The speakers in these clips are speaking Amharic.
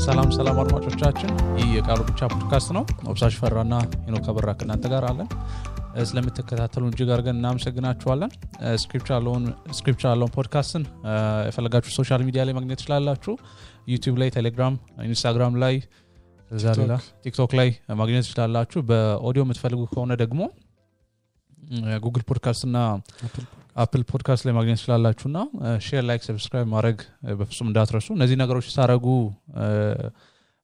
ሰላም አድማጮቻችን ይህ የቃሉ ብቻ ፖድካስት ነው። ኦብሳሽ ፈራና ሄኖክ አበራ ከናንተ ጋር አለን። ስለምትከታተሉን እጅግ አድርገን እናመሰግናችኋለን። ስክሪፕቸር አለውን ፖድካስትን የፈለጋችሁ ሶሻል ሚዲያ ላይ ማግኘት ትችላላችሁ። ዩቲዩብ ላይ፣ ቴሌግራም፣ ኢንስታግራም ላይ፣ ቲክቶክ ላይ ማግኘት ትችላላችሁ። በኦዲዮ የምትፈልጉ ከሆነ ደግሞ ጉግል ፖድካስት እና አፕል ፖድካስት ላይ ማግኘት ትችላላችሁና ሼር፣ ላይክ፣ ሰብስክራይብ ማድረግ በፍጹም እንዳትረሱ። እነዚህ ነገሮች ሳረጉ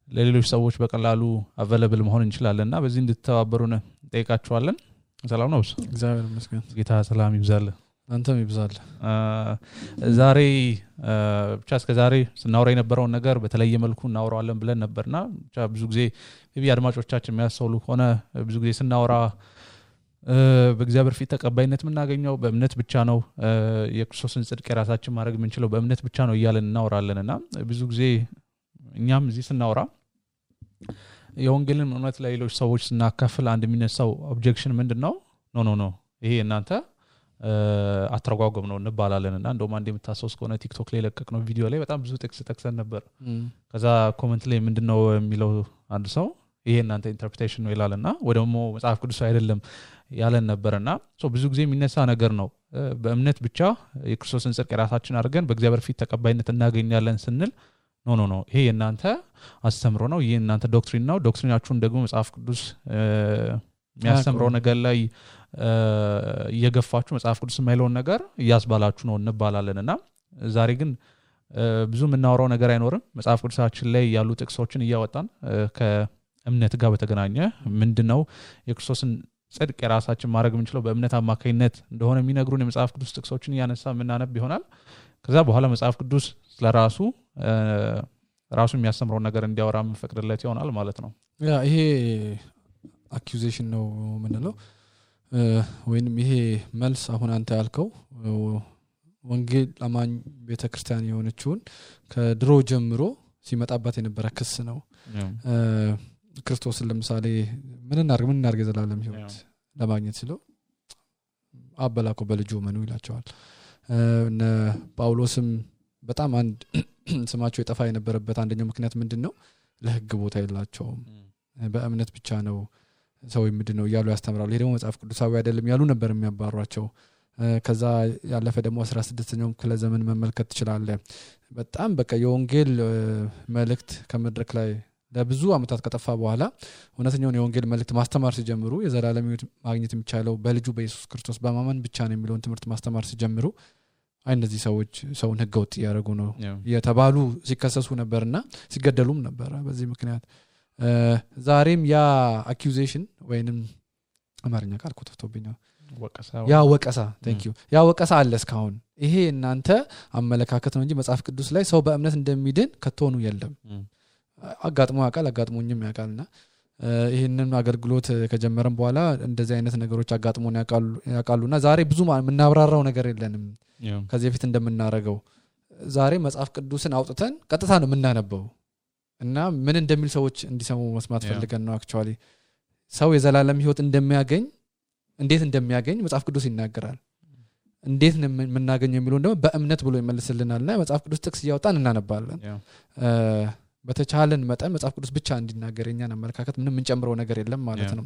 ለሌሎች ሰዎች በቀላሉ አቬለብል መሆን እንችላለንና በዚህ እንድትተባበሩን ጠይቃችኋለን። ሰላም ነው። እግዚአብሔር ይመስገን። ጌታ ሰላም ይብዛል፣ አንተም ይብዛል። ዛሬ ብቻ እስከዛሬ ስናወራ የነበረውን ነገር በተለየ መልኩ እናወራዋለን ብለን ነበርና ብቻ ብዙ ጊዜ አድማጮቻችን የሚያስተውሉ ሆነ ብዙ ጊዜ ስናወራ በእግዚአብሔር ፊት ተቀባይነት የምናገኘው በእምነት ብቻ ነው፣ የክርስቶስን ጽድቅ የራሳችን ማድረግ የምንችለው በእምነት ብቻ ነው እያለን እናወራለንና ብዙ ጊዜ እኛም እዚህ ስናወራ የወንጌልን እውነት ለሌሎች ሰዎች ስናካፍል አንድ የሚነሳው ኦብጀክሽን ምንድነው? ኖ ይሄ እናንተ አተረጓጎም ነው እንባላለንና እንደውም አንድ የምታስታውስ ከሆነ ቲክቶክ ላይ ለቀቅነው ቪዲዮ ላይ በጣም ብዙ ጥቅስ ጠቅሰን ነበር። ከዛ ኮሜንት ላይ ምንድነው የሚለው አንድ ሰው ይሄ እናንተ ኢንተርፕሬቴሽን ነው ይላልና ወደሞ መጽሐፍ ቅዱስ አይደለም ያለን ነበርና ብዙ ጊዜ የሚነሳ ነገር ነው። በእምነት ብቻ የክርስቶስን ጽድቅ የራሳችን አድርገን በእግዚአብሔር ፊት ተቀባይነት እናገኛለን ስንል ኖ ይሄ እናንተ አስተምሮ ነው፣ ይሄ እናንተ ዶክትሪን ነው። ዶክትሪናችሁን ደግሞ መጽሐፍ ቅዱስ የሚያስተምረው ነገር ላይ እየገፋችሁ መጽሐፍ ቅዱስ የማይለውን ነገር እያስባላችሁ ነው እንባላለንና ዛሬ ግን ብዙ የምናወራው ነገር አይኖርም። መጽሐፍ ቅዱሳችን ላይ ያሉ ጥቅሶችን እያወጣን ከእምነት ጋር በተገናኘ ምንድነው የክርስቶስን ጽድቅ የራሳችን ማድረግ የምንችለው በእምነት አማካኝነት እንደሆነ የሚነግሩን የመጽሐፍ ቅዱስ ጥቅሶችን እያነሳ የምናነብ ይሆናል። ከዛ በኋላ መጽሐፍ ቅዱስ ስለራሱ የሚያስተምረው ነገር እንዲያወራ የምንፈቅድለት ይሆናል ማለት ነው። ይሄ አኪዩዜሽን ነው ምንለው ወይንም ይሄ መልስ አሁን አንተ ያልከው ወንጌል አማኝ ቤተክርስቲያን የሆነችውን ከድሮ ጀምሮ ሲመጣባት የነበረ ክስ ነው። ክርስቶስን ለምሳሌ ምን እናርግ ዘላለም ሕይወት ለማግኘት ሲለው አበላኮ በልጁ መኑ ይላቸዋል። እነ ጳውሎስም በጣም አንድ ስማቸው የጠፋ የነበረበት አንደኛው ምክንያት ምንድነው? ለሕግ ቦታ የላቸውም፣ በእምነት ብቻ ነው ሰው ምንድነው ያሉ ያስተምራሉ። ይሄ ደግሞ መጽሐፍ ቅዱሳዊ አይደለም ያሉ ነበር የሚያባሯቸው። ከዛ ያለፈ ደግሞ 16ኛው ክፍለ ዘመን መመልከት ትችላለህ። በጣም በቃ የወንጌል መልእክት ከመድረክ ላይ ለብዙ አመታት ከጠፋ በኋላ እውነተኛውን የወንጌል መልእክት ማስተማር ሲጀምሩ የዘላለም ሕይወት ማግኘት የሚቻለው በልጁ በኢየሱስ ክርስቶስ በማመን ብቻ ነው የሚለውን ትምህርት ማስተማር ሲጀምሩ እነዚህ ሰዎች ሰውን ህገወጥ ያደረጉ ነው የተባሉ ሲከሰሱ ነበርና ሲገደሉም ነበር በዚህ ምክንያት። ዛሬም ያ አኪዩዜሽን ወይንም አማርኛ ቃል ኮተቶብኛው ወቀሳ ያ ወቀሳ አለ እስካሁን። ይሄ እናንተ አመለካከት ነው እንጂ መጽሐፍ ቅዱስ ላይ ሰው በእምነት እንደሚድን ከቶኑ የለም። አጋጥሞኝም ያውቃልና ይሄንን አገልግሎት ከጀመረን በኋላ እንደዚህ አይነት ነገሮች አጋጥሞን ያውቃሉና ዛሬ ብዙ የምናብራራው ነገር የለንም። ከዚህ በፊት እንደምናረገው ዛሬ መጽሐፍ ቅዱስን አውጥተን ቀጥታ ነው የምናነበው እና ምን እንደሚል ሰዎች እንዲሰሙ መስማት ፈልገን ነው። አክቹአሊ ሰው የዘላለም ሕይወት እንደሚያገኝ እንዴት እንደሚያገኝ መጽሐፍ ቅዱስ ይናገራል። እንዴት ነው የምናገኘው የሚለው ደግሞ በእምነት ብሎ ይመልስልናልና መጽሐፍ ቅዱስ ጥቅስ እያወጣን እናነባለን። በተቻለን መጠን መጽሐፍ ቅዱስ ብቻ እንዲናገር እኛን አመለካከት ምንም እንጨምረው ነገር የለም ማለት ነው።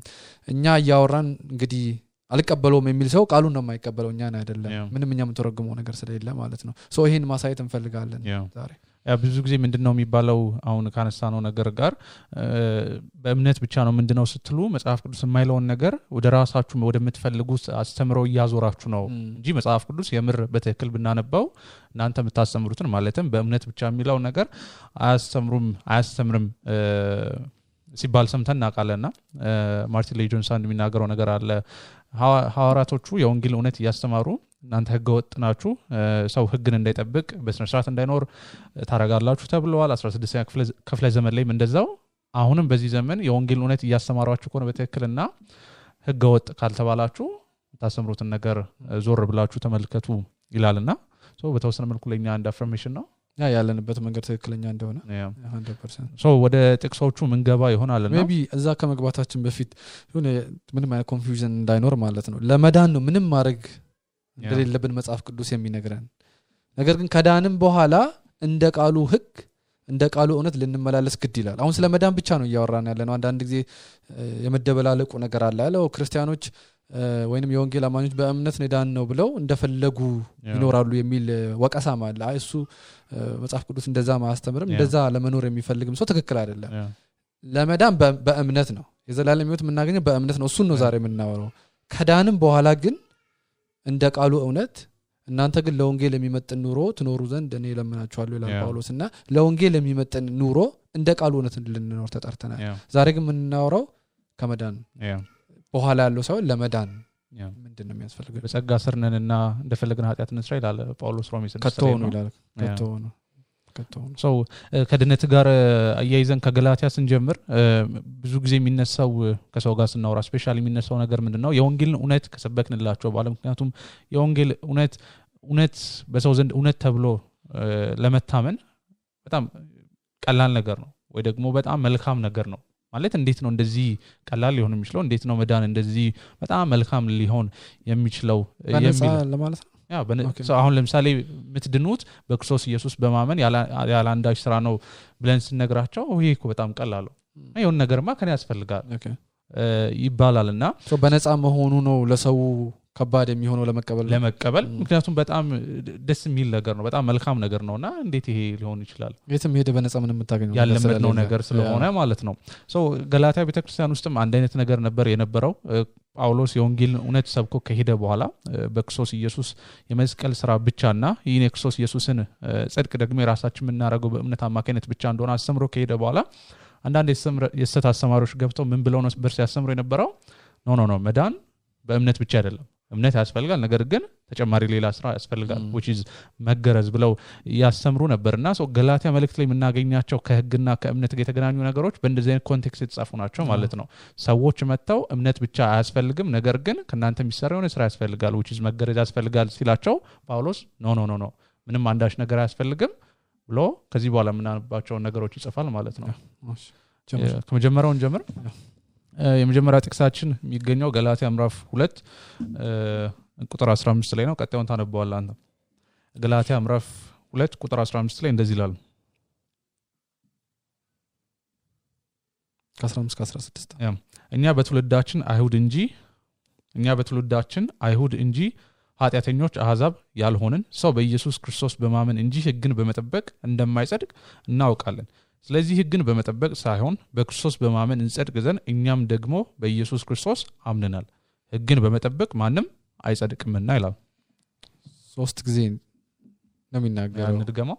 እኛ ያወራን እንግዲህ አልቀበለውም የሚል ሰው ቃሉን ነው የማይቀበለው፣ እኛን አይደለም። ምንም እኛ የምንተረጉመው ነገር ስለሌለ ማለት ነው። ይሄን ማሳየት እንፈልጋለን ዛሬ። ብዙ ጊዜ ምንድነው የሚባለው አሁን ካነሳነው ነገር ጋር በእምነት ብቻ ነው ምንድነው ስትሉ መጽሐፍ ቅዱስ የማይለውን ነገር ወደ ራሳችሁ ወደምትፈልጉት አስተምረው እያዞራችሁ ነው እንጂ መጽሐፍ ቅዱስ የምር በትክክል ብናነባው እናንተ የምታስተምሩትን ማለትም በእምነት ብቻ የሚለው ነገር አያስተምርም ሲባል ሰምተን እናውቃለንና ማርቲን ሌይ ጆንስ አንድ የሚናገረው ነገር አለ። ሐዋርያቶቹ የወንጌል እውነት እያስተማሩ እናንተ ህገወጥ ናችሁ፣ ሰው ህግን እንዳይጠብቅ በስነ ስርዓት እንዳይኖር ታረጋላችሁ ተብለዋል። 16ኛ ክፍለ ዘመን ላይም እንደዛው አሁንም በዚህ ዘመን የወንጌል እውነት እያስተማሯችሁ ከሆነ በትክክልና ህገወጥ ካልተባላችሁ ታስተምሩትን ነገር ዞር ብላችሁ ተመልከቱ ይላልና በተወሰነ መልኩ ለኛ አንድ አፍርሜሽን ነው ያለንበት መንገድ ትክክለኛ እንደሆነ 100%። ወደ ጥቅሶቹ መንገባ ይሆናልና ሜቢ እዛ ከመግባታችን በፊት ምንም አይነት ኮንፊውዥን እንዳይኖር ማለት ነው ለመዳን ነው ምንም ማድረግ እንደሌለብን መጽሐፍ ቅዱስ የሚነግረን። ነገር ግን ከዳንም በኋላ እንደ ቃሉ ህግ እንደ ቃሉ እውነት ልንመላለስ ግድ ይላል አሁን ስለ መዳን ብቻ ነው እያወራን ያለነው አንዳንድ ጊዜ የመደበላለቁ ነገር አለ ያለው ክርስቲያኖች ወይንም የወንጌል አማኞች በእምነት ነዳን ነው ብለው እንደፈለጉ ይኖራሉ የሚል ወቀሳም አለ እሱ መጽሐፍ ቅዱስ እንደዛ ማስተምርም እንደዛ ለመኖር የሚፈልግም ሰው ትክክል አይደለም ለመዳን በእምነት ነው የዘላለም ሕይወት የምናገኘው በእምነት ነው እሱን ነው ዛሬ የምናወራው ከዳንም በኋላ ግን እንደ ቃሉ እውነት እናንተ ግን ለወንጌል የሚመጥን ኑሮ ትኖሩ ዘንድ እኔ ለምናችኋለሁ ይላል ጳውሎስና ለወንጌል የሚመጥን ኑሮ እንደ ቃሉ እውነት ልንኖር ተጠርተናል ዛሬ ግን የምናወራው ከመዳን በኋላ ያለው ሰው ለመዳን ምንድነው የሚያስፈልገው በጸጋ ስር ነንና እንደፈለግን ኃጢአት እንስራ ይላል ጳውሎስ ሮሜ 6 ከተው ነው ይላል ሰው ከድነት ጋር አያይዘን ከገላትያ ስንጀምር ብዙ ጊዜ የሚነሳው ከሰው ጋር ስናወራ ስፔሻሊ የሚነሳው ነገር ምንድነው የወንጌልን እውነት ከሰበክንላቸው ባለ ምክንያቱም የወንጌል እውነት በሰው ዘንድ እውነት ተብሎ ለመታመን በጣም ቀላል ነገር ነው ወይ ደግሞ በጣም መልካም ነገር ነው ማለት እንዴት ነው እንደዚህ ቀላል ሊሆን የሚችለው እንዴት ነው መዳን እንደዚህ በጣም መልካም ሊሆን የሚችለው የሚል ለማለት ነው አሁን ለምሳሌ ምትድኑት በክርስቶስ ኢየሱስ በማመን ያለ አንዳች ስራ ነው ብለን ስንነግራቸው ይሄ እኮ በጣም ቀላል ነው የሆነ ነገርማ ከኔ ያስፈልጋል ይባላልና በነፃ መሆኑ ነው ለሰው ከባድ የሚሆነው ለመቀበል ምክንያቱም በጣም ደስ የሚል ነገር ነው በጣም መልካም ነገር ነውና እንዴት ይሄ ሊሆን ይችላል የትም ሄደ በነፃ ምንም የምታገኘው ያለመድነው ነገር ስለሆነ ማለት ነው ገላትያ ቤተክርስቲያን ውስጥም አንድ አይነት ነገር ነበር የነበረው ጳውሎስ የወንጌልን እውነት ሰብኮ ከሄደ በኋላ በክርስቶስ ኢየሱስ የመስቀል ስራ ብቻና ይህን የክርስቶስ ኢየሱስን ጽድቅ ደግሞ የራሳችን የምናደርገው በእምነት አማካኝነት ብቻ እንደሆነ አስተምሮ ከሄደ በኋላ አንዳንድ የስተት አስተማሪዎች ገብተው ምን ብለው ነው በርስ ያስተምሩ የነበረው ኖ መዳን በእምነት ብቻ አይደለም እምነት ያስፈልጋል ነገር ግን ተጨማሪ ሌላ ስራ ያስፈልጋል which is መገረዝ ብለው ያስተምሩ ነበርና ገላትያ መልእክት ላይ የምናገኛቸው ከህግና ከእምነት ጋር የተገናኙ ነገሮች በእንደዚህ አይነት ኮንቴክስት የተጻፉ ናቸው ማለት ነው ሰዎች መተው እምነት ብቻ አያስፈልግም ነገር ግን ከናንተ የሚሰራው ስራ ያስፈልጋል which is መገረዝ ያስፈልጋል ሲላቸው ጳውሎስ ኖ ምንም አንዳች ነገር አያስፈልግም ብሎ ከዚህ በኋላ የምናነባቸው ነገሮች ይጽፋል ማለት ነው ከመጀመሪያውን ጀምር የመጀመሪያ ጥቅሳችን የሚገኘው ገላትያ ምዕራፍ 2 ቁጥር 15 ላይ ነው ቀጣዩን ታነበዋለህ አንተ ገላትያ ምዕራፍ 2 ቁጥር 15 ላይ እንደዚህ ይላል ከ15 16 እኛ በትውልዳችን አይሁድ እንጂ ኃጢአተኞች አሕዛብ ያልሆንን ሰው በኢየሱስ ክርስቶስ በማመን እንጂ ሕግን በመጠበቅ እንደማይጸድቅ እናውቃለን ስለዚህ ሕግን በመጠበቅ ሳይሆን በክርስቶስ በማመን እንጸድቅ ዘንድ እኛም ደግሞ በኢየሱስ ክርስቶስ አምነናል ሕግን በመጠበቅ ማንም አይጸድቅምና ይላል 3 ጊዜ ነው የሚናገረው እንድገመው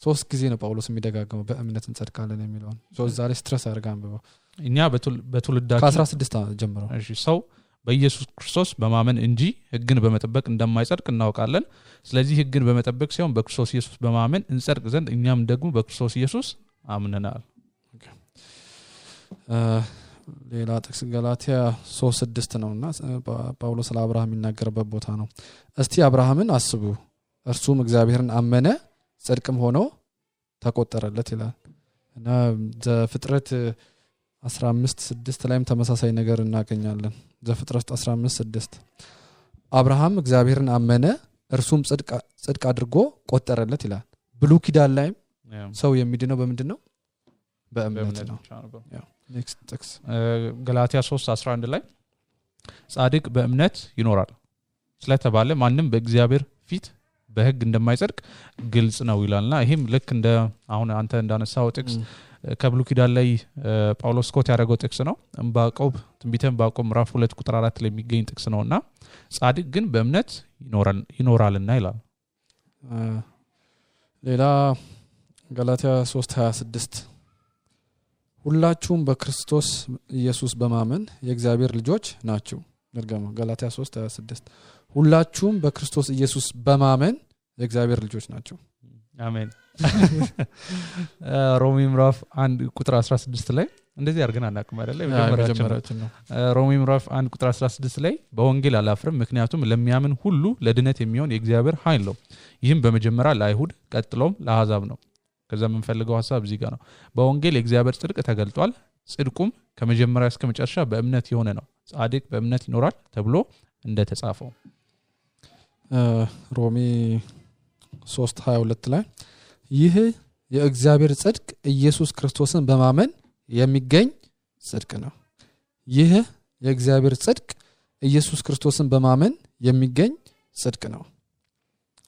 3 ጊዜ ነው ጳውሎስ የሚደጋገመው በእምነት እንጸድቃለን የሚለውን ዛሬ ስትረስ አድርጋን በባ እኛ በትውልዳችን ከ16 ጀምሮ እሺ ሰው በኢየሱስ ክርስቶስ በማመን እንጂ ሕግን በመጠበቅ እንደማይጸድቅ እናውቃለን ስለዚህ ሕግን በመጠበቅ ሳይሆን በክርስቶስ ኢየሱስ በማመን እንጸድቅ ዘንድ እኛም ደግሞ በክርስቶስ ኢየሱስ አምነናል ሌላ ጥቅስ ገላትያ 3:6 ነውና ጳውሎስ ለአብርሃም የሚናገርበት ቦታ ነው እስቲ አብርሃምን አስቡ እርሱም እግዚአብሔርን አመነ ጽድቅም ሆኖ ተቆጠረለት ይላል እና ዘፍጥረት 15:6 ላይም ተመሳሳይ ነገር እናገኛለን ዘፍጥረት 15:6 አብርሃም እግዚአብሔርን አመነ እርሱም ጽድቅ አድርጎ ቆጠረለት ይላል ብሉይ ኪዳን ላይም ሰው የሚድነው በምንድነው በእምነት ነው ኔክስት ጥቅስ ገላትያ 3:11 ላይ ጻድቅ በእምነት ይኖራል ስለተባለ ማንም በእግዚአብሔር ፊት በሕግ እንደማይጸድቅ ግልጽ ነው ይላልና ይሄም ልክ እንደ አሁን አንተ እንዳነሳው ጥቅስ ከብሉይ ኪዳን ላይ ጳውሎስ ኮት ያደረገው ጥቅስ ነው ዕንባቆም ትንቢተ ዕንባቆም ምዕራፍ 2 ቁጥር 4 ላይ የሚገኝ ጥቅስ ነውና ጻድቅ ግን በእምነት ይኖራልና ይላል ሌላ ገላትያ 3:26 ሁላችሁም በክርስቶስ ኢየሱስ በማመን የእግዚአብሔር ልጆች ናችሁ ድርገመው ገላትያ 3:26 ሁላችሁም በክርስቶስ ኢየሱስ በማመን የእግዚአብሔር ልጆች ናችሁ አሜን ሮሜ ምዕራፍ 1 ቁጥር 16 ላይ እንደዚህ አድርገን አናውቅም አይደለ የመጀመሪያችን ነው ሮሜ ምዕራፍ 1 ቁጥር 16 ላይ በወንጌል አላፍርም ምክንያቱም ለሚያምን ሁሉ ለድነት የሚሆን የእግዚአብሔር ኃይል ነው ይህም በመጀመሪያ ለአይሁድ ቀጥሎም ለአሕዛብ ነው ከዛ የምንፈልገው ሐሳብ እዚህ ጋር ነው በወንጌል የእግዚአብሔር ጽድቅ ተገልጧል ጽድቁም ከመጀመሪያ እስከ መጨረሻ በእምነት የሆነ ነው ጻድቅ በእምነት ይኖራል ተብሎ እንደተጻፈው ሮሜ 3:22 ላይ ይህ የእግዚአብሔር ጽድቅ ኢየሱስ ክርስቶስን በማመን የሚገኝ ጽድቅ ነው። ይህ የእግዚአብሔር ጽድቅ ኢየሱስ ክርስቶስን በማመን የሚገኝ ጽድቅ ነው።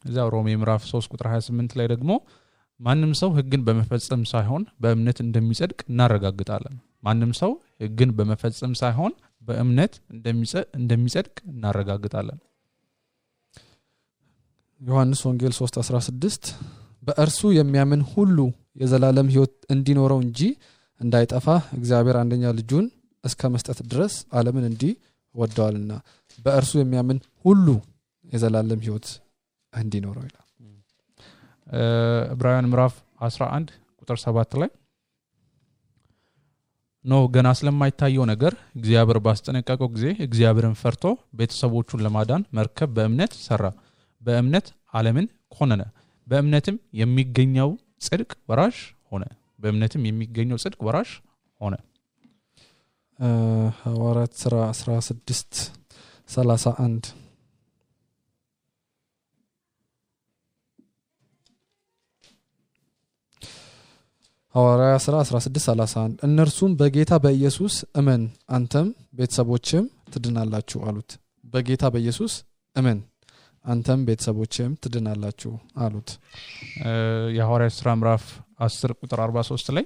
እዛው ሮሜ ምዕራፍ 3 ቁጥር 28 ላይ ደግሞ ማንም ሰው ሕግን በመፈጸም ሳይሆን በእምነት እንደሚጸድቅ እናረጋግጣለን። ማንም ሰው ሕግን በመፈጸም ሳይሆን በእምነት እንደሚጸድቅ እናረጋግጣለን። ዮሐንስ ወንጌል 3:16 በእርሱ የሚያምን ሁሉ የዘላለም ሕይወት እንዲኖረው እንጂ እንዳይጠፋ እግዚአብሔር አንደኛ ልጁን እስከ መስጠት ድረስ ዓለምን እንዲህ ወደዋልና በእርሱ የሚያምን ሁሉ የዘላለም ሕይወት እንዲኖረው ይላል። ዕብራውያን ምዕራፍ 11 ቁጥር 7 ላይ ገና ስለማይታየው ነገር እግዚአብሔር ባስጠነቀቀው ጊዜ እግዚአብሔርን ፈርቶ ቤተሰቦቹን ለማዳን መርከብ በእምነት ሰራ። በእምነት ዓለምን ኮነነ። በእምነትም የሚገኘው ጽድቅ ወራሽ ሆነ። በእምነትም የሚገኘው ጽድቅ ወራሽ ሆነ። ሐዋርያት ሥራ 16:31 ሐዋርያት ሥራ 16:31 እነርሱም በጌታ በኢየሱስ እመን አንተም ቤተሰቦችም ትድናላችሁ አሉት። በጌታ በኢየሱስ እመን አንተም ቤተሰቦችም ትድናላችሁ አሉት። የሐዋርያት ሥራ ምዕራፍ 10 ቁጥር 43 ላይ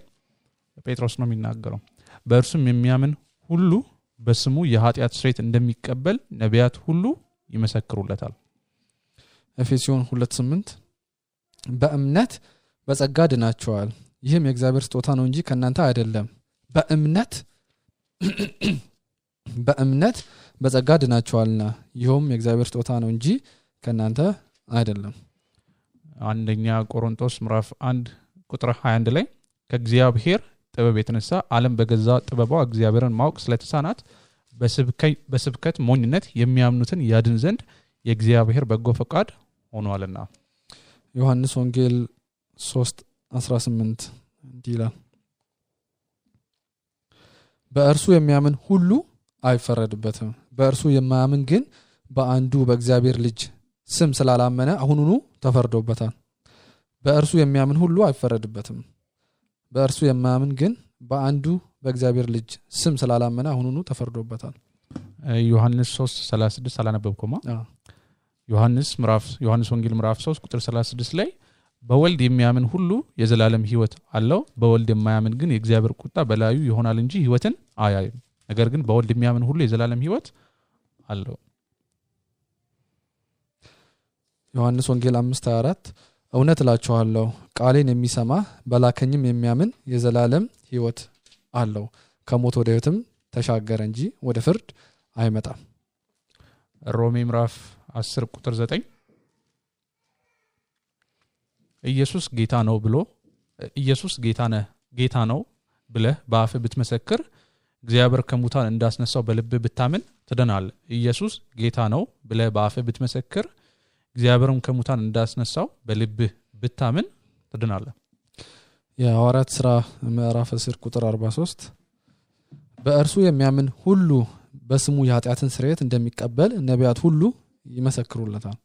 ጴጥሮስ ነው የሚናገረው። በእርሱም የሚያምን ሁሉ በስሙ የኃጢአት ስርየት እንደሚቀበል ነቢያት ሁሉ ይመሰክሩለታል። ኤፌሶን 2:8 በእምነት በጸጋ ድናችኋል፣ ይህም የእግዚአብሔር ስጦታ ነው እንጂ ከእናንተ አይደለም። በእምነት በጸጋ ድናችኋልና ይህም የእግዚአብሔር ስጦታ ነው እንጂ ከእናንተ አይደለም። አንደኛ ቆሮንቶስ ምዕራፍ 1 ቁጥር 21 ላይ ከእግዚአብሔር ጥበብ የተነሳ ዓለም በገዛ ጥበቧ እግዚአብሔርን ማወቅ ስለተሳናት በስብከት ሞኝነት የሚያምኑትን ያድን ዘንድ የእግዚአብሔር በጎ ፈቃድ ሆኗልና። ዮሐንስ ወንጌል 3:18 እንዲህ ይላል በእርሱ የሚያምን ሁሉ አይፈረድበትም። በእርሱ የማያምን ግን በአንዱ በእግዚአብሔር ልጅ ስም ስላላመነ አሁኑኑ ተፈርዶበታል። በእርሱ የሚያምን ሁሉ አይፈረድበትም። በእርሱ የማያምን ግን በአንዱ በእግዚአብሔር ልጅ ስም ስላላመነ አሁኑኑ ተፈርዶበታል። ዮሐንስ 3:36 አላነበብኩማ? ዮሐንስ ወንጌል ምዕራፍ 3 ቁጥር 36 ላይ በወልድ የሚያምን ሁሉ የዘላለም ሕይወት አለው፣ በወልድ የማያምን ግን የእግዚአብሔር ቁጣ በላዩ ይሆናል እንጂ ሕይወትን አያይም። ነገር ግን በወልድ የሚያምን ሁሉ የዘላለም ሕይወት አለው። ዮሐንስ ወንጌል 5:24 እውነት እላችኋለሁ ቃሌን የሚሰማ በላከኝም የሚያምን የዘላለም ሕይወት አለው፣ ከሞት ወደ ሕይወትም ተሻገረ እንጂ ወደ ፍርድ አይመጣም። ሮሜ ምዕራፍ 10 ቁጥር 9 ኢየሱስ ጌታ ነው ብለህ በአፍህ ብትመሰክር እግዚአብሔር ከሙታን እንዳስነሳው በልብህ ብታምን ትድናለህ። ኢየሱስ ጌታ ነው ብለህ በአፍህ ብትመሰክር እግዚአብሔርም ከሙታን እንዳስነሳው በልብህ ብታምን ትድናለህ። የሐዋርያት ሥራ ምዕራፍ 10 ቁጥር 43 በእርሱ የሚያምን ሁሉ በስሙ የኃጢአትን ስርየት እንደሚቀበል ነቢያት ሁሉ ይመሰክሩለታል።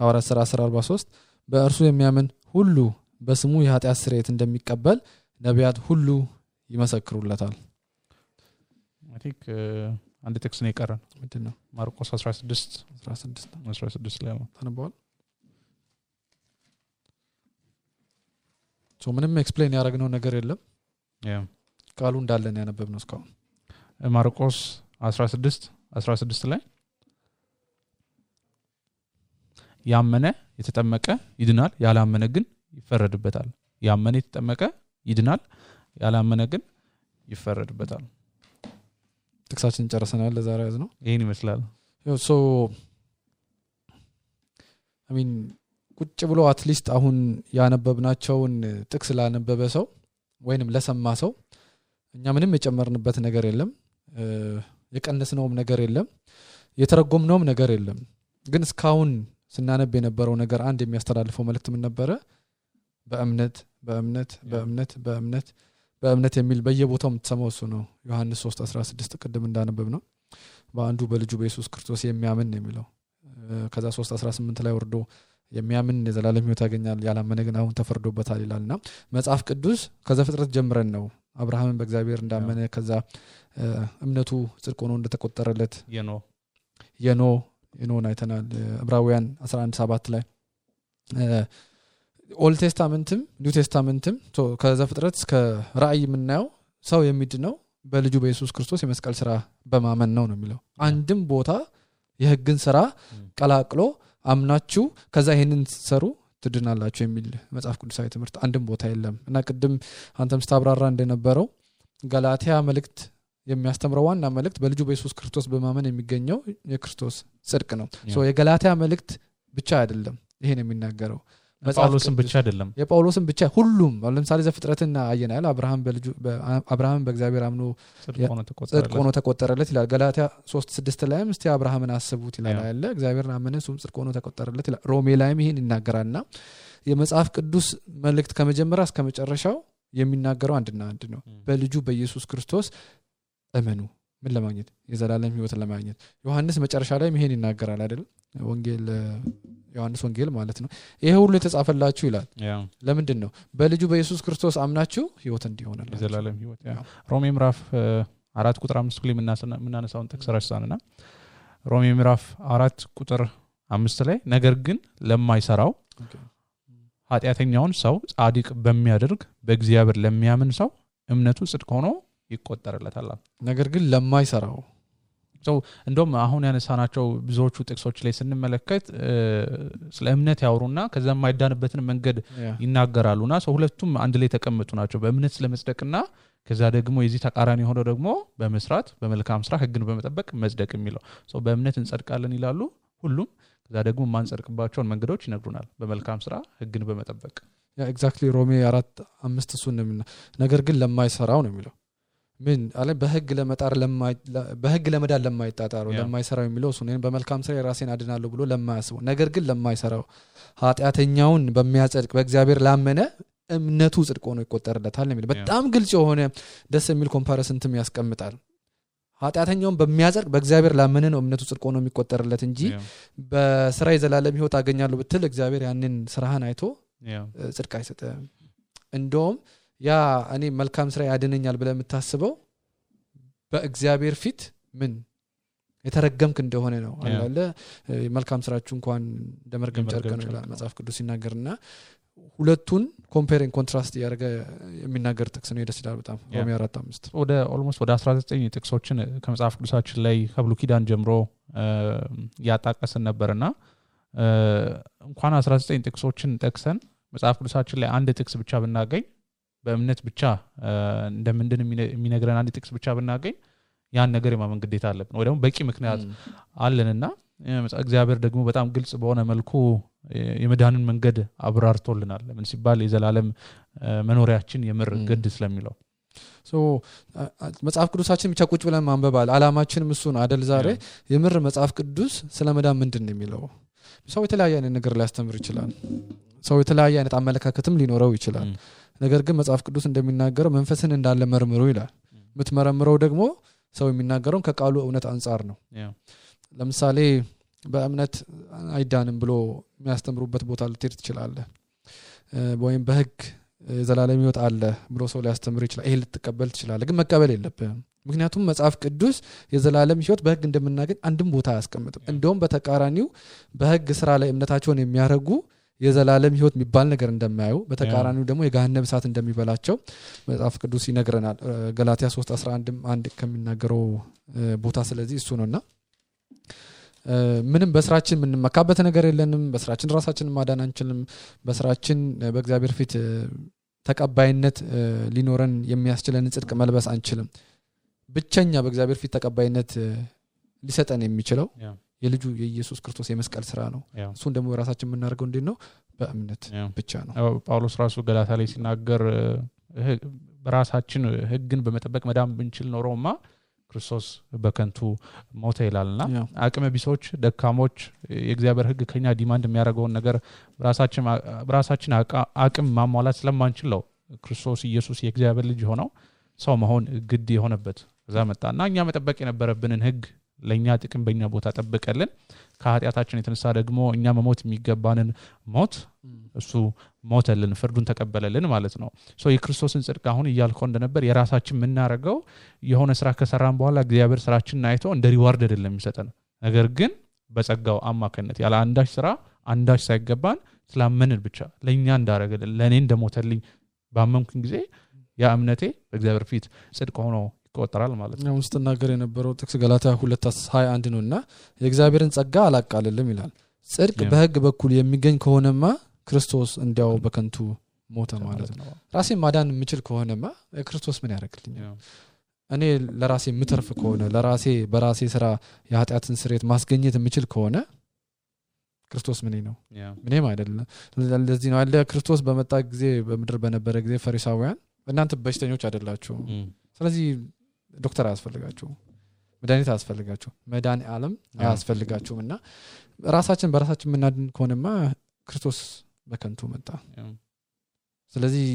ሐዋርያት ሥራ 10:43 በእርሱ የሚያምን ሁሉ በስሙ የኃጢአት ስርየት እንደሚቀበል ነቢያት ሁሉ ይመሰክሩለታል። አቲክ አንድ ጥቅስ ነው የቀረን። ምንድነው? ማርቆስ 16 ላይ ነው ተነበዋል። ምንም ኤክስፕሌን ያደረግነው ነገር የለም። ቃሉ እንዳለን ያነበብነው እስካሁን። ማርቆስ 16 ላይ ያመነ የተጠመቀ ይድናል፣ ያላመነ ግን ይፈረድበታል። ያመነ የተጠመቀ ይድናል፣ ያላመነ ግን ይፈረድበታል። ጥቅሳችን ጨርሰናል። ለዛሬ ያዝነው ይሄን ይመስላል። ቁጭ ብሎ አትሊስት አሁን ያነበብናቸውን ጥቅስ ላነበበ ሰው ወይንም ለሰማ ሰው እኛ ምንም የጨመርንበት ነገር የለም፣ የቀነስነውም ነገር የለም፣ የተረጎምነውም ነገር የለም። ግን እስካሁን ስናነብ የነበረው ነገር አንድ የሚያስተላልፈው መልእክት ምን ነበረ? በእምነት የሚል በየቦታው የምትሰማው እሱ ነው። ዮሐንስ 3:16 ቅድም እንዳነበብ ነው በአንዱ በልጁ በኢየሱስ ክርስቶስ የሚያምን ነው የሚለው። ከዛ 3:18 ላይ ወርዶ የሚያምን የዘላለም ሕይወት ያገኛል ያላመነ ግን አሁን ተፈርዶበታል ይላልና መጽሐፍ ቅዱስ ከዘፍጥረት ጀምረን ነው አብርሃምን በእግዚአብሔር እንዳመነ ከዛ እምነቱ ጽድቅ ሆኖ እንደተቆጠረለት የኖን አይተናል ዕብራውያን 11:7 ላይ ኦልድ ቴስታመንትም ኒው ቴስታመንትም ከዘፍጥረት እስከ ራእይ የምናየው ሰው የሚድነው በልጁ በኢየሱስ ክርስቶስ የመስቀል ስራ በማመን ነው የሚለው አንድም ቦታ የሕግን ስራ ቀላቅሎ አምናችሁ ከዛ ይሄንን ሰሩ ትድናላችሁ የሚል መጽሐፍ ቅዱሳዊ ትምህርት አንድም ቦታ የለም እና ቅድም አንተም ስታብራራ እንደነበረው ገላትያ መልእክት የሚያስተምረው ዋና መልእክት በልጁ በኢየሱስ ክርስቶስ በማመን የሚገኘው የክርስቶስ ጽድቅ ነው የገላትያ መልእክት ብቻ አይደለም ይሄን የሚናገረው ጳውሎስም ብቻ አይደለም የጳውሎስም ብቻ ሁሉም ለምሳሌ ዘፍጥረትና አየናል አብርሃም በእግዚአብሔር አምኖ ጽድቅ ሆኖ ተቆጠረለት ይላል ገላትያ 3:6 ላይም እስቲ አብርሃምን አስቡት ይላል አይደል እግዚአብሔርን አመነ እሱም ጽድቅ ሆኖ ተቆጠረለት ይላል ሮሜ ላይም ይሄን ይናገራልና የመጽሐፍ ቅዱስ መልእክት ከመጀመሪያ እስከ መጨረሻው የሚናገረው አንድና አንድ ነው በልጁ በኢየሱስ ክርስቶስ እመኑ ምን ለማግኘት የዘላለም ሕይወትን ለማግኘት ዮሐንስ መጨረሻ ላይ ይሄን ይናገራል አይደል ወንጌል ዮሐንስ ወንጌል ማለት ነው ይሄ ሁሉ የተጻፈላችሁ ይላል ለምንድን ነው በልጁ በኢየሱስ ክርስቶስ አምናችሁ ሕይወት እንዲሆንላችሁ የዘላለም ሕይወት ሮሜ ምዕራፍ 4 ቁጥር 5 ላይ ምናነሳውን ጥቅስ ረሳንና ሮሜ ምዕራፍ 4 ቁጥር 5 ላይ ነገር ግን ለማይሰራው ኃጢአተኛውን ሰው ጻድቅ በሚያደርግ በእግዚአብሔር ለሚያምን ሰው እምነቱ ጽድቅ ሆኖ ይቆጠርለታል ነገር ግን ለማይሰራው እንደውም አሁን ያነሳናቸው ብዙዎቹ ጥቅሶች ላይ ስንመለከት ስለ እምነት ያወሩና ከዛ የማይዳንበትን መንገድ ይናገራሉና ሁለቱም አንድ ላይ ተቀመጡ ናቸው በእምነት ስለመጽደቅና ከዛ ደግሞ የዚህ ተቃራኒ ሆኖ ደግሞ በመስራት በመልካም ስራ ሕግን በመጠበቅ መጽደቅ የሚለው በእምነት እንጸድቃለን ይላሉ ሁሉም ከዛ ደግሞ ማንጸድቅባቸውን መንገዶች ይነግሩናል በመልካም ስራ ሕግን በመጠበቅ ኤግዛክትሊ ሮሜ 4:5 እሱን ነው ነገር ግን ለማይሰራው ነው የሚለው ምን አለ በሕግ ለመዳን ለማይጣጣሩ ለማይሰራው የሚለው እሱ ነው በመልካም ስራ የራሴን አድናለሁ ብሎ ለማያስበው ነገር ግን ለማይሰራው ኃጢአተኛውን በሚያጸድቅ በእግዚአብሔር ላመነ እምነቱ ጽድቅ ሆኖ ይቆጠርለታል ነው የሚለው በጣም ግልጽ የሆነ ደስ የሚል ኮምፓሪሰንትም ያስቀምጣል ኃጢአተኛውን በሚያጸድቅ በእግዚአብሔር ላመነ ነው እምነቱ ጽድቅ ሆኖ የሚቆጠርለት እንጂ በስራ የዘላለም ሕይወት አገኛለሁ ብትል እግዚአብሔር ያንን ስራህን አይቶ ጽድቅ አይሰጥም እንደውም ያ እኔ መልካም ስራ ያድነኛል ብለህ የምታስበው በእግዚአብሔር ፊት ምን የተረገምክ እንደሆነ ነው አላለ መልካም ስራችሁ እንኳን እንደመርገም ጨርቅ ነው ይላል መጽሐፍ ቅዱስ ሲናገርና ሁለቱን ኮምፔሪንግ ኮንትራስት ያደረገ የሚናገር ጥቅስ ነው ደስ ይላል በጣም ሮሜ 4:5 ወደ ኦልሞስት ወደ 19 ጥቅሶችን ከመጽሐፍ ቅዱሳችን ላይ ከብሉይ ኪዳን ጀምሮ ያጣቀስን ነበርና እንኳን 19 ጥቅሶችን ጠቅሰን መጽሐፍ ቅዱሳችን ላይ አንድ ጥቅስ ብቻ ብናገኝ በእምነት ብቻ እንደምንድን የሚነግረን አንድ ጥቅስ ብቻ ብናገኝ ያን ነገር የማመን ግዴታ አለብን ወይ ደግሞ በቂ ምክንያት አለንና እግዚአብሔር ደግሞ በጣም ግልጽ በሆነ መልኩ የመዳንን መንገድ አብራርቶልናል ለምን ሲባል የዘላለም መኖሪያችን የምር ግድ ስለሚለው መጽሐፍ ቅዱሳችን ብቻ ቁጭ ብለን ማንበባል አላማችንም እሱ ነው አይደል ዛሬ የምር መጽሐፍ ቅዱስ ስለመዳን ምንድን ነው የሚለው ሰው የተለያየ አይነት ነገር ሊያስተምር ይችላል ሰው የተለያየ አይነት አመለካከትም ሊኖረው ይችላል ነገር ግን መጽሐፍ ቅዱስ እንደሚናገረው መንፈስን እንዳለ መርምሩ ይላል የምትመረምረው ደግሞ ሰው የሚናገረው ከቃሉ እውነት አንፃር ነው ለምሳሌ በእምነት አይዳንም ብሎ የሚያስተምሩበት ቦታ ልትሄድ ትችላለህ ወይም በሕግ ዘላለም ሕይወት አለ ብሎ ሰው ሊያስተምር ይችላል ይሄ ልትቀበል ትችላለህ ግን መቀበል የለብህም ምክንያቱም መጽሐፍ ቅዱስ የዘላለም ሕይወት በሕግ እንደምናገኝ አንድም ቦታ አያስቀምጥም እንደውም በተቃራኒው በሕግ ስራ ላይ እምነታቸውን የሚያረጉ የዘላለም ሕይወት የሚባል ነገር እንደማያዩ በተቃራኒው ደግሞ የገሃነም እሳት እንደሚበላቸው መጽሐፍ ቅዱስ ይነግረናል ገላትያ 3:11 አንድ ከሚናገረው ቦታ ስለዚህ እሱ ነውና ምንም በስራችን ምንመካበት ነገር የለንም በስራችን ራሳችንን ማዳን አንችልም በስራችን በእግዚአብሔር ፊት ተቀባይነት ሊኖረን የሚያስችለን ጽድቅ መልበስ አንችልም ብቸኛ በእግዚአብሔር ፊት ተቀባይነት ሊሰጠን የሚችለው የልጁ የኢየሱስ ክርስቶስ የመስቀል ስራ ነው እሱን ደግሞ በራሳችን የምናደርገው እንዴት ነው በእምነት ብቻ ነው ጳውሎስ ራሱ ገላትያ ላይ ሲናገር በራሳችን ሕግን በመጠበቅ መዳን ብንችል ኖሮማ ክርስቶስ በከንቱ ሞተ ይላልና አቅመ ቢሶች ደካሞች የእግዚአብሔር ሕግ ከኛ ዲማንድ የሚያደርገውን ነገር በራሳችን አቅም ማሟላት ስለማንችል ነው ክርስቶስ ኢየሱስ የእግዚአብሔር ልጅ ሆነው ሰው መሆን ግድ የሆነበት እዛ መጣና እኛ መጠበቅ የነበረብንን ሕግ ለኛ ጥቅም በእኛ ቦታ ጠብቀልን ከኃጢአታችን የተነሳ ደግሞ እኛ መሞት የሚገባንን ሞት እሱ ሞተልን ፍርዱን ተቀበለልን ማለት ነው ሶ የክርስቶስን ጽድቅ አሁን ይያልከው እንደነበር የራሳችን ምናረጋው የሆነ ስራ ከሰራን በኋላ እግዚአብሔር ስራችንን አይቶ እንደ ሪዋርድ አይደለም የሚሰጠን ነገር ግን በጸጋው አማካኝነት ያለ አንዳች ስራ አንዳች ሳይገባን ስላመንን ብቻ ለኛ እንዳረገልን ለኔ እንደሞተልኝ ባመንኩኝ ጊዜ ያ እምነቴ በእግዚአብሔር ፊት ጽድቅ ሆኖ ይቆጠራል ማለት ነው ውስጥ ተናገር የነበረው ጥቅስ ገላትያ 2:21 ነውና የእግዚአብሔርን ጸጋ አላቃልልም ይላል ጽድቅ በህግ በኩል የሚገኝ ከሆነማ ክርስቶስ እንዲያው በከንቱ ሞተ ማለት ነው ራሴን ማዳን የምችል ከሆነማ ክርስቶስ ምን ያደርግልኛል እኔ ለራሴ ምትርፍ ከሆነ ለራሴ በራሴ ስራ የኃጢአትን ስርየት ማስገኘት የምችል ከሆነ ክርስቶስ ምን ነው ምንም አይደለም ለዚህ ነው አለ ክርስቶስ በመጣ ጊዜ በመድር በነበረ ጊዜ ፈሪሳውያን እናንተ በሽተኞች አይደላችሁ ስለዚህ ዶክተር አያስፈልጋችሁ መድኃኒት አያስፈልጋችሁ መዳን ዓለም አያስፈልጋችሁምና ራሳችን በራሳችን ምናድን ከሆነማ ክርስቶስ በከንቱ መጣ ስለዚህ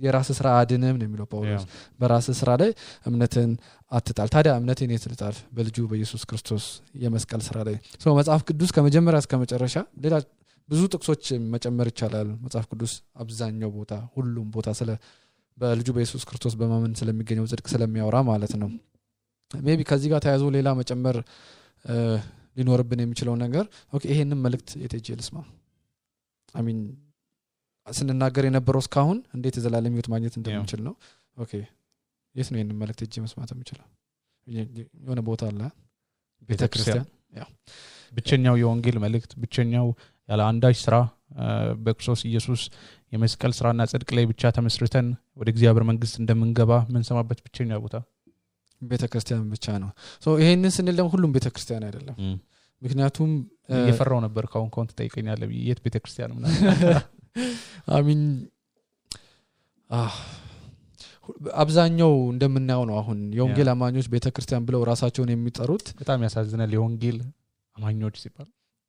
የራስ ስራ አድነም ነው የሚለው ጳውሎስ በራስ ስራ ላይ እምነትን አትጣል ታዲያ እምነትን የትልጣል በልጁ በኢየሱስ ክርስቶስ የመስቀል ስራ ላይ ሶ መጽሐፍ ቅዱስ ከመጀመሪያ እስከ መጨረሻ ሌላ ብዙ ጥቅሶች መጨመር ይቻላል መጽሐፍ ቅዱስ አብዛኛው ቦታ ሁሉም ቦታ ስለ በልጁ በኢየሱስ ክርስቶስ በማመን ስለሚገኘው ጽድቅ ስለሚያወራ ማለት ነው ሜቢ ከዚህ ጋር ተያይዞ ሌላ መጨመር ሊኖርብን የሚችለው ነገር ኦኬ ይሄንን መልእክት የቴጄልስማ አሚን ስንናገር የነበረው እስካሁን እንዴት ዘላለም ህይወት ማግኘት እንደምንችል ነው ኦኬ የት ነው ይሄንን መልእክት እጄ መስማት የምችለው የሆነ ቦታ አለ ቤተክርስቲያን ያው ብቸኛው የወንጌል መልእክት ብቸኛው ያለ አንዳች ስራ በክርስቶስ ኢየሱስ የመስቀል ስራና ጽድቅ ላይ ብቻ ተመስርተን ወደ እግዚአብሔር መንግስት እንደምንገባ ምን ሰማበት ብቸኛው ቦታ ቤተክርስቲያን ብቻ ነው ሶ ይሄንን ስንል ደግሞ ሁሉም ቤተክርስቲያን አይደለም ምክንያቱም የፈራው ነበር ካሁን ተጠይቀኛለህ የት ቤተክርስቲያን ምናምን አሚን አብዛኛው እንደምናየው ነው አሁን የወንጌል አማኞች ቤተክርስቲያን ብለው ራሳቸውን የሚጠሩት በጣም ያሳዝናል የወንጌል አማኞች ሲባል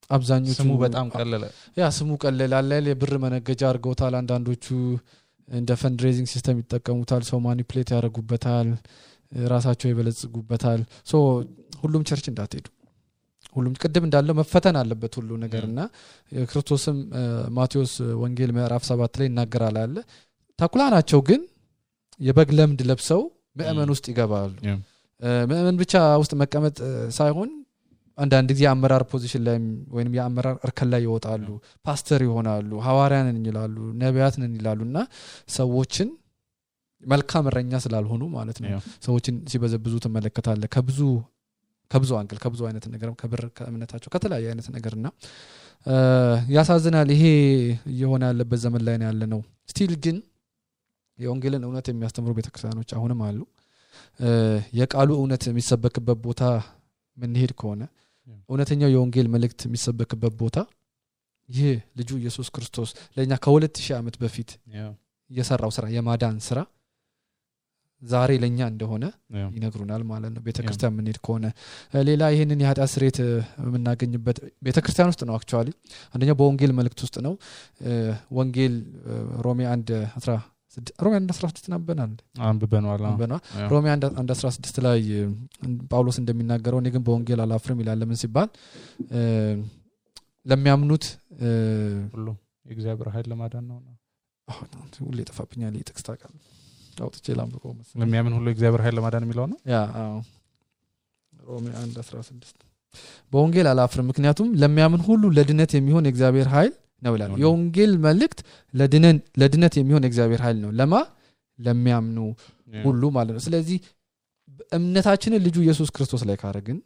አብዛኞቹ ስሙ በጣም ቀለለ ያ ስሙ ቀለለ አለ የብር መነገጃ አርገውታል አንዳንዶቹ እንደ ፈንድሬዚንግ ሲስተም ይጠቀሙታል ሰው ማኒፕሌት ያደርጉበታል ራሳቸው ይበለጽጉበታል ሶ ሁሉም ቸርች እንዳትሄዱ ሁሉም ቅድም እንዳለው መፈተን አለበት ሁሉ ነገርና ክርስቶስም ማቴዎስ ወንጌል ምዕራፍ 7 ላይ ይናገራል አለ ተኩላ ናቸው ግን የበግ ለምድ ለብሰው ምእመን ውስጥ ይገባሉ ምእመን ብቻ ውስጥ መቀመጥ ሳይሆን አንዳንድ ጊዜ አመራር ፖዚሽን ላይ ወይንም የአመራር እርከን ላይ ይወጣሉ ፓስተር ይሆናሉ ሐዋርያንን ይላሉ ነቢያትን ይላሉና ሰዎችን መልካም እረኛ ስላልሆኑ ማለት ነው ሰዎችን ሲበዘብዙ ተመለከታለ ከብዙ አንግል ከብዙ አይነት ነገር ከብር ከእምነታቸው ከተለያየ አይነት ነገርና ያሳዝናል ይሄ የሆነ ያለበት ዘመን ላይ ነው ያለነው ስቲል ግን የወንጌልን እውነት የሚያስተምሩ ቤተክርስቲያኖች አሁንም አሉ የቃሉ እውነት የሚሰበክበት ቦታ ምን ሄድ ከሆነ እውነተኛው የወንጌል መልእክት የሚሰበክበት ቦታ ይሄ ልጁ ኢየሱስ ክርስቶስ ለኛ ከ2000 ዓመት በፊት የሰራው ስራ የማዳን ስራ ዛሬ ለኛ እንደሆነ ይነግሩናል ማለት ነው ቤተክርስቲያን ምን ሄድ ከሆነ ሌላ ይሄንን የኃጢአት ስርየት የምናገኝበት ቤተክርስቲያን ውስጥ ነው አክቹአሊ አንደኛ በወንጌል መልእክት ውስጥ ነው ወንጌል ሮሜ 1:16 ነበናል አንብበናል ሮሜ 1:16 ላይ ጳውሎስ እንደሚናገረው እኔ ግን በወንጌል አላፍርም ይላል ለምን ሲባል ለሚያምኑት ሁሉ የእግዚአብሔር ኃይል ለማዳን ነው ሁሉ ይጠፋብኛል ይጥቅስ ታውቃል አውጥቼ ላምብቆ መሰለኝ ለሚያምን ሁሉ የእግዚአብሔር ኃይል ለማዳን የሚለው ነው ያ ሮሜ 1:16 በወንጌል አላፍርም ምክንያቱም ለሚያምን ሁሉ ለድነት የሚሆን የእግዚአብሔር ኃይል ነው ይላል የወንጌል መልእክት ለድነት የሚሆን የእግዚአብሔር ኃይል ነው ለሚያምኑ ሁሉ ማለት ነው ስለዚህ እምነታችንን ልጁ ኢየሱስ ክርስቶስ ላይ ካረግን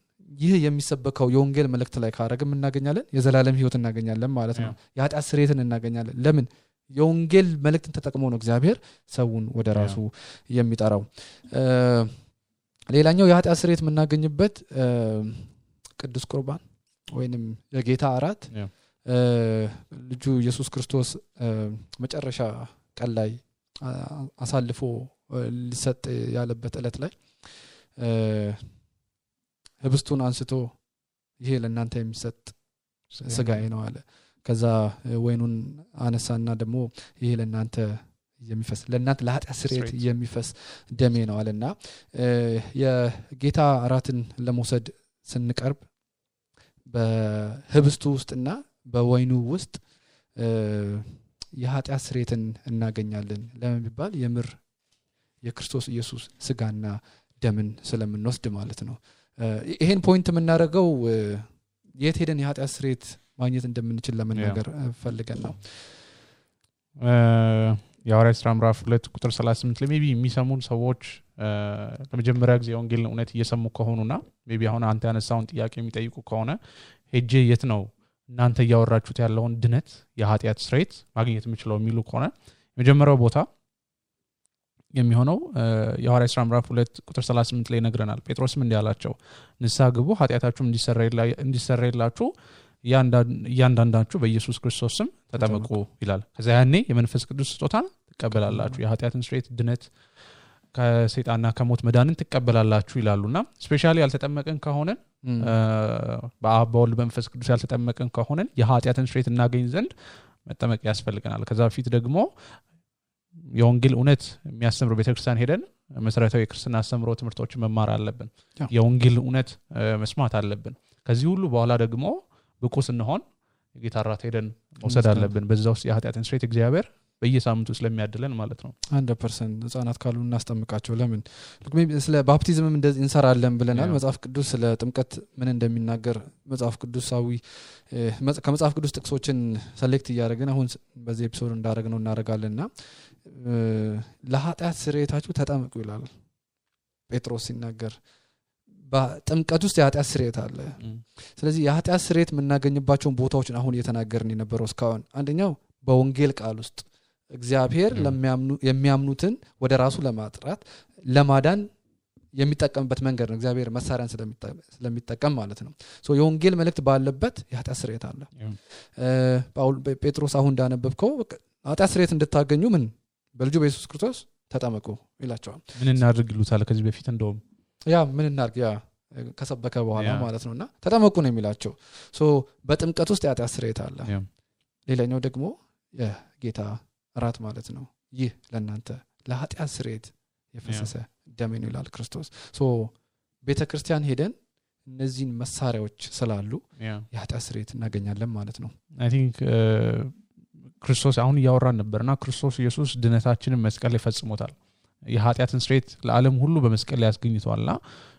ይህ የሚሰበከው የወንጌል መልእክት ላይ ካረግን እናገኛለን የዘላለም ህይወት እናገኛለን ማለት ነው የኃጢአት ስርየትን እናገኛለን ለምን የወንጌል መልእክትን ተጠቅሞ ነው እግዚአብሔር ሰውን ወደ ራሱ የሚጠራው ሌላኛው የኃጢአት ስርየት የምናገኝበት ቅዱስ ቁርባን ወይንም የጌታ እራት ልጁ ኢየሱስ ክርስቶስ መጨረሻ ቀን ላይ አሳልፎ ሊሰጥ ያለበት ዕለት ላይ ህብስቱን አንስቶ ይሄ ለእናንተ የሚሰጥ ስጋዬ ነው አለ ከዛ ወይኑን አነሳና ደግሞ ይሄ ለእናንተ የሚፈስ ለእናንተ ለኃጢአት ስርየት የሚፈስ ደሜ ነው አለና የጌታ እራትን ለመውሰድ ስንቀርብ በህብስቱ ውስጥና በወይኑ ውስጥ የኃጢአት ስርየትን እናገኛለን ለምን ቢባል የምር የክርስቶስ ኢየሱስ ስጋና ደምን ስለምንወስድ ማለት ነው። ይሄን ፖይንት የምናደርገው የት ሄደን የኃጢአት ስርየት ማግኘት እንደምንችል ለመናገር ፈልገን ነው። የሐዋርያት ሥራ ምዕራፍ 2 ቁጥር 38 ላይ ሜቢ የሚሰሙን ሰዎች ለመጀመሪያ ጊዜ ወንጌልን እውነት እየሰሙ ከሆኑና ሜቢ አሁን አንተ ያነሳውን ጥያቄ የሚጠይቁ ከሆነ ሄጄ የት ነው እናንተ እያወራችሁት ያለውን ድነት የኃጢአት ስርየት ማግኘት የምችለው የሚሉ ከሆነ የመጀመሪያው ቦታ የሚሆነው የሐዋርያት ሥራ ምዕራፍ 2 ቁጥር 38 ላይ ነግረናል። ጴጥሮስም እንዲህ አላቸው ንስሐ ግቡ ኃጢአታችሁም እንዲሰረይላችሁ እያንዳንዳችሁ በኢየሱስ ክርስቶስ ስም ተጠመቁ ይላል። ከዛ ያኔ የመንፈስ ቅዱስ ስጦታን ትቀበላላችሁ የኃጢአትን ስርየት ድነት ከሰይጣንና ከሞት መዳንን ትቀበላላችሁ ይላሉና ስፔሻሊ ያልተጠመቀን ከሆነ በአብ በወልድ በመንፈስ ቅዱስ ያልተጠመቀን ከሆነ የኃጢአትን ስርየት እናገኝ ዘንድ መጠመቅ ያስፈልገናል። ከዛ በፊት ደግሞ የወንጌል እውነት የሚያስተምሩ ቤተክርስቲያን ሄደን መሰረታዊ የክርስትና አስተምሮ ትምህርቶችን መማር አለብን። የወንጌል እውነት መስማት አለብን። ከዚህ ሁሉ በኋላ ደግሞ ብቁ ስንሆን የጌታ ራት ሄደን መውሰድ አለብን። በዛ ውስጥ የኃጢአትን ስርየት እግዚአብሔር በየሳምንቱ ስለሚያድለን ማለት ነው። 100% ህፃናት ካሉ እናስጠምቃቸው። ለምን ስለ ባፕቲዝምም እንደዚህ እንሰራለን ብለናል። መጽሐፍ ቅዱስ ስለ ጥምቀት ምን እንደሚናገር መጽሐፍ ቅዱሳዊ ከመጽሐፍ ቅዱስ ጥቅሶችን ሰሌክት እያደረግን አሁን በዚህ ኤፒሶድ እንዳደረግነው እናደርጋለንና ለኃጢአት ስርየታችሁ ተጠመቁ ይላል ጴጥሮስ ሲናገር። በጥምቀት ውስጥ የኃጢአት ስርየት አለ። ስለዚህ የኃጢአት ስርየት የምናገኝባቸውን ቦታዎችን አሁን እየተናገርን የነበረው እስካሁን አንደኛው በወንጌል ቃል ውስጥ እግዚአብሔር የሚያምኑትን ወደ ራሱ ለማጥራት ለማዳን የሚጠቀምበት መንገድ ነው። እግዚአብሔር መሳሪያን ስለሚጠቀም ማለት ነው። ሶ የወንጌል መልእክት ባለበት የኃጢአት ስርየት አለ። ጴጥሮስ አሁን እንዳነበብከው ኃጢአት ስርየት እንድታገኙ ምን በልጁ በኢየሱስ ክርስቶስ ተጠመቁ ይላቸዋል። ምን እናድርግ ይሉታል ከዚህ በፊት እንደውም ምን እናድርግ ከሰበከ በኋላ ማለት ነውና ተጠመቁ ነው የሚላቸው። ሶ በጥምቀት ውስጥ የኃጢአት ስርየት አለ። ሌላኛው ደግሞ የጌታ ራት ማለት ነው። ይህ ለእናንተ ለኃጢአት ስርየት የፈሰሰ ደሜ ነው ይላል ክርስቶስ። ሶ ቤተክርስቲያን ሄደን እነዚህን መሳሪያዎች ስላሉ የኃጢአት ስርየት እናገኛለን ማለት ነው። አይ ቲንክ ክርስቶስ አሁን እያወራን ነበርና ክርስቶስ ኢየሱስ ድነታችንን መስቀል ላይ ፈጽሞታል። የኃጢአትን ስርየት ለዓለም ሁሉ በመስቀል ላይ ያስገኝቷልና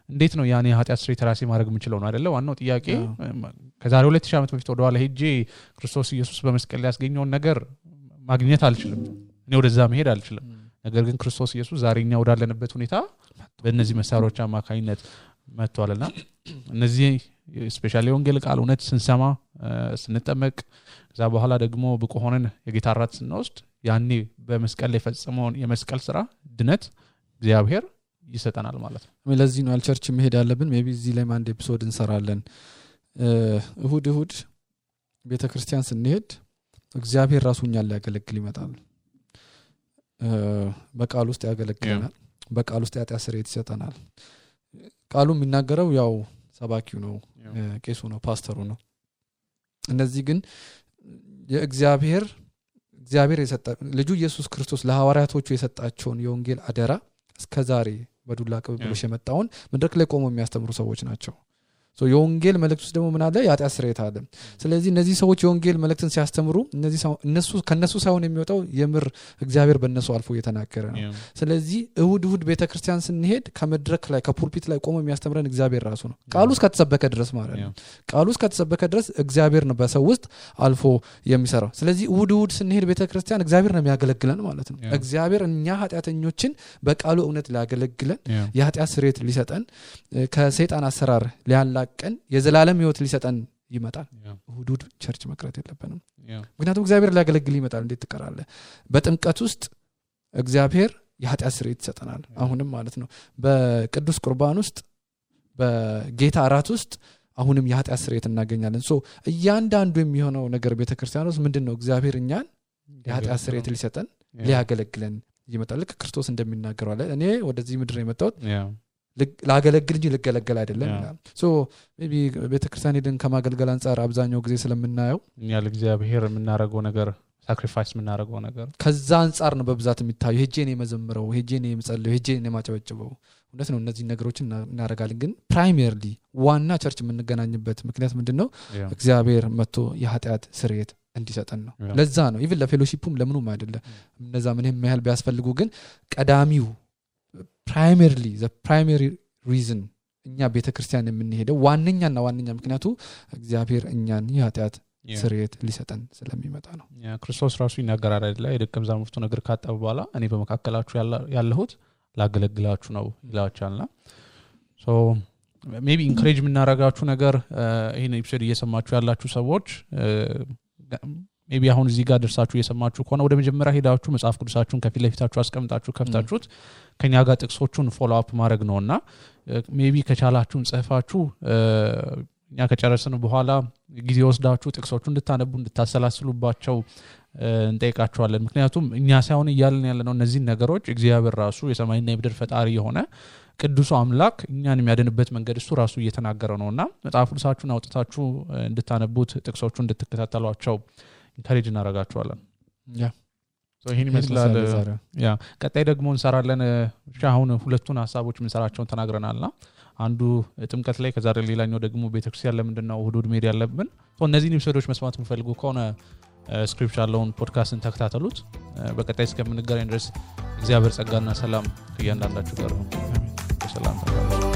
እንዴት ነው ያኔ የኃጢአት ስርየት ራሴ ማድረግ የምችለው ነው አይደለ? ዋናው ጥያቄ ከዛሬ 2000 ዓመት በፊት ወደኋላ ሄጄ ክርስቶስ ኢየሱስ በመስቀል ላይ ያስገኘውን ነገር ማግኘት አልችልም። እኔ ወደዛ መሄድ አልችልም። ነገር ግን ክርስቶስ ኢየሱስ ዛሬኛ ወዳለንበት ሁኔታ በእነዚህ መሳሪያዎች አማካኝነት መጥቷልና እነዚህ ስፔሻሊ ወንጌል ቃል እውነት ስንሰማ ስንጠመቅ ከዛ በኋላ ደግሞ ብቁ ሆነን የጌታ ራት ስንወስድ ያኔ በመስቀል ላይ ፈጽመውን የመስቀል ስራ ድነት እግዚአብሔር ይሰጠናል ማለት ነው። ለዚህ ነው አልቸርች መሄድ ያለብን። ሜቢ እዚህ ላይ አንድ ኤፒሶድ እንሰራለን። እሁድ ቤተክርስቲያን ስንሄድ እግዚአብሔር ራሱኛል ሊያገለግል ይመጣል። በቃል ውስጥ ያገለግለናል። በቃል ውስጥ የኃጢአት ስርየት ይሰጠናል። ቃሉ የሚናገረው ያው ሰባኪው ነው፣ ቄሱ ነው፣ ፓስተሩ ነው። እነዚህ ግን የእግዚአብሔር የሰጠ ልጁ ኢየሱስ ክርስቶስ ለሐዋርያቶቹ የሰጣቸውን የወንጌል አደራ እስከዛሬ በዱላ ቅብብሎሽ የመጣውን መድረክ ላይ ቆመው የሚያስተምሩ ሰዎች ናቸው። ሶ የወንጌል መልእክት ውስጥ ደግሞ ምን አለ? የኃጢአት ስርየት አለ። ስለዚህ እነዚህ ሰዎች የወንጌል መልእክትን ሲያስተምሩ ከነሱ ሳይሆን የሚወጣው የምር እግዚአብሔር በእነሱ አልፎ እየተናገረ ነው። ስለዚህ እሁድ ቤተክርስቲያን ስንሄድ ከመድረክ ላይ ከፑልፒት ላይ ቆሞ የሚያስተምረን እግዚአብሔር ራሱ ነው። ቃሉ እስከተሰበከ ድረስ ማለት ነው። ቃሉ እስከተሰበከ ድረስ እግዚአብሔር ነው በሰው ውስጥ አልፎ የሚሰራው። ስለዚህ እሁድ ስንሄድ ቤተክርስቲያን እግዚአብሔር ነው የሚያገለግለን ማለት ነው። እግዚአብሔር እኛ ኃጢአተኞችን በቃሉ እውነት ሊያገለግለን የኃጢአት ስርየት ሊሰጠን ከሰይጣን አሰራር ሊያላቀን የዘላለም ሕይወት ሊሰጠን ይመጣል። እሁድ ቸርች መቅረት የለብንም። ምክንያቱም እግዚአብሔር ሊያገለግል ይመጣል። እንዴት ትቀራለህ? በጥምቀት ውስጥ እግዚአብሔር የኃጢአት ስርየት ይሰጠናል። አሁንም ማለት ነው በቅዱስ ቁርባን ውስጥ በጌታ እራት ውስጥ አሁንም የኃጢአት ስርየት እናገኛለን። ሶ እያንዳንዱ የሚሆነው ነገር ቤተክርስቲያን ውስጥ ምንድነው? እግዚአብሔር እኛን የኃጢአት ስርየት ሊሰጠን ሊያገለግለን ይመጣል። ልክ ክርስቶስ እንደሚናገረው አለ እኔ ወደዚህ ምድር የመጣሁት ላገለግል እንጂ ልገለገል አይደለም ይላል። ሶ ሜቢ ቤተክርስቲያን ሄደን ከማገልገል አንፃር አብዛኛው ጊዜ ስለምናየው እኛ ለእግዚአብሔር የምናደርገው ነገር ሳክሪፋይስ የምናደርገው ነገር ከዛ አንፃር ነው በብዛት የሚታየው ሄጄ ነው የመዘምረው ሄጄ ነው የምጸልየው ሄጄ ነው የማጨበጭበው እውነት ነው እነዚህ ነገሮችን እናደርጋለን ግን ፕራይመሪሊ ዋና ቸርች የምንገናኝበት ምክንያት ምንድነው እግዚአብሔር መጥቶ የኃጢአት ስርየት እንዲሰጠን ነው ለዛ ነው ኢቭን ለፌሎሺፑም ለምኑም አይደለም እነዛ ምንም ያህል ቢያስፈልጉ ግን ቀዳሚው ፕራይመሪሊ ዘ ፕራይመሪ ሪዝን እኛ ቤተክርስቲያን የምንሄደው ዋነኛና ዋነኛ ምክንያቱ እግዚአብሔር እኛን የኃጢአት ስርየት ሊሰጠን ስለሚመጣ ነው ክርስቶስ ራሱ ይናገራል አይደል የደቀ መዛሙርቱ ነገር ካጠቡ በኋላ እኔ በመካከላችሁ ያለሁት ላገለግላችሁ ነው ይላችኋልና ሶ ሜቢ ኢንከሬጅ የምናረጋችሁ ነገር ይሄን ኤፒሶድ እየሰማችሁ ያላችሁ ሰዎች ሜቢ አሁን እዚህ ጋር ደርሳችሁ እየሰማችሁ ከሆነ ወደ መጀመሪያ ሄዳችሁ መጽሐፍ ቅዱሳችሁን ከፊት ለፊታችሁ አስቀምጣችሁ ከፍታችሁት ከኛ ጋር ጥቅሶቹን ፎሎ አፕ ማድረግ ነውና ሜቢ ከቻላችሁን ጽፋችሁ እኛ ከጨረስን በኋላ ጊዜ ወስዳችሁ ጥቅሶቹን እንድታነቡ እንድታሰላስሉባቸው እንጠይቃችኋለን ምክንያቱም እኛ ሳይሆን ይያልን ያለነው እነዚህ ነገሮች እግዚአብሔር ራሱ የሰማይና የምድር ፈጣሪ የሆነ ቅዱስ አምላክ እኛን የሚያድንበት መንገድ እሱ ራሱ እየተናገረ ነውና መጽሐፍ ቅዱሳችሁን አውጥታችሁ እንድታነቡት ጥቅሶቹን እንድትከታተሏቸው ኢንካሬጅ እናረጋችኋለን ይሄን ይመስላል ቀጣይ ደግሞ እንሰራለን አሁን ሁለቱን ሐሳቦች እንሰራቸውን ተናግረናልና አንዱ ጥምቀት ላይ ከዛሬ ሌላኛው ደግሞ ቤተክርስቲያን ለምንድነው እሁድ ሜዲ ያለብን እነዚህን ኤፒሶዶች መስማት የምትፈልጉ ከሆነ ስክሪፕት ያለውን ፖድካስትን ተከታተሉት በቀጣይ እስከምንገናኝ ድረስ እግዚአብሔር ጸጋና ሰላም ከእያንዳንዳችሁ ጋር ነው ሰላም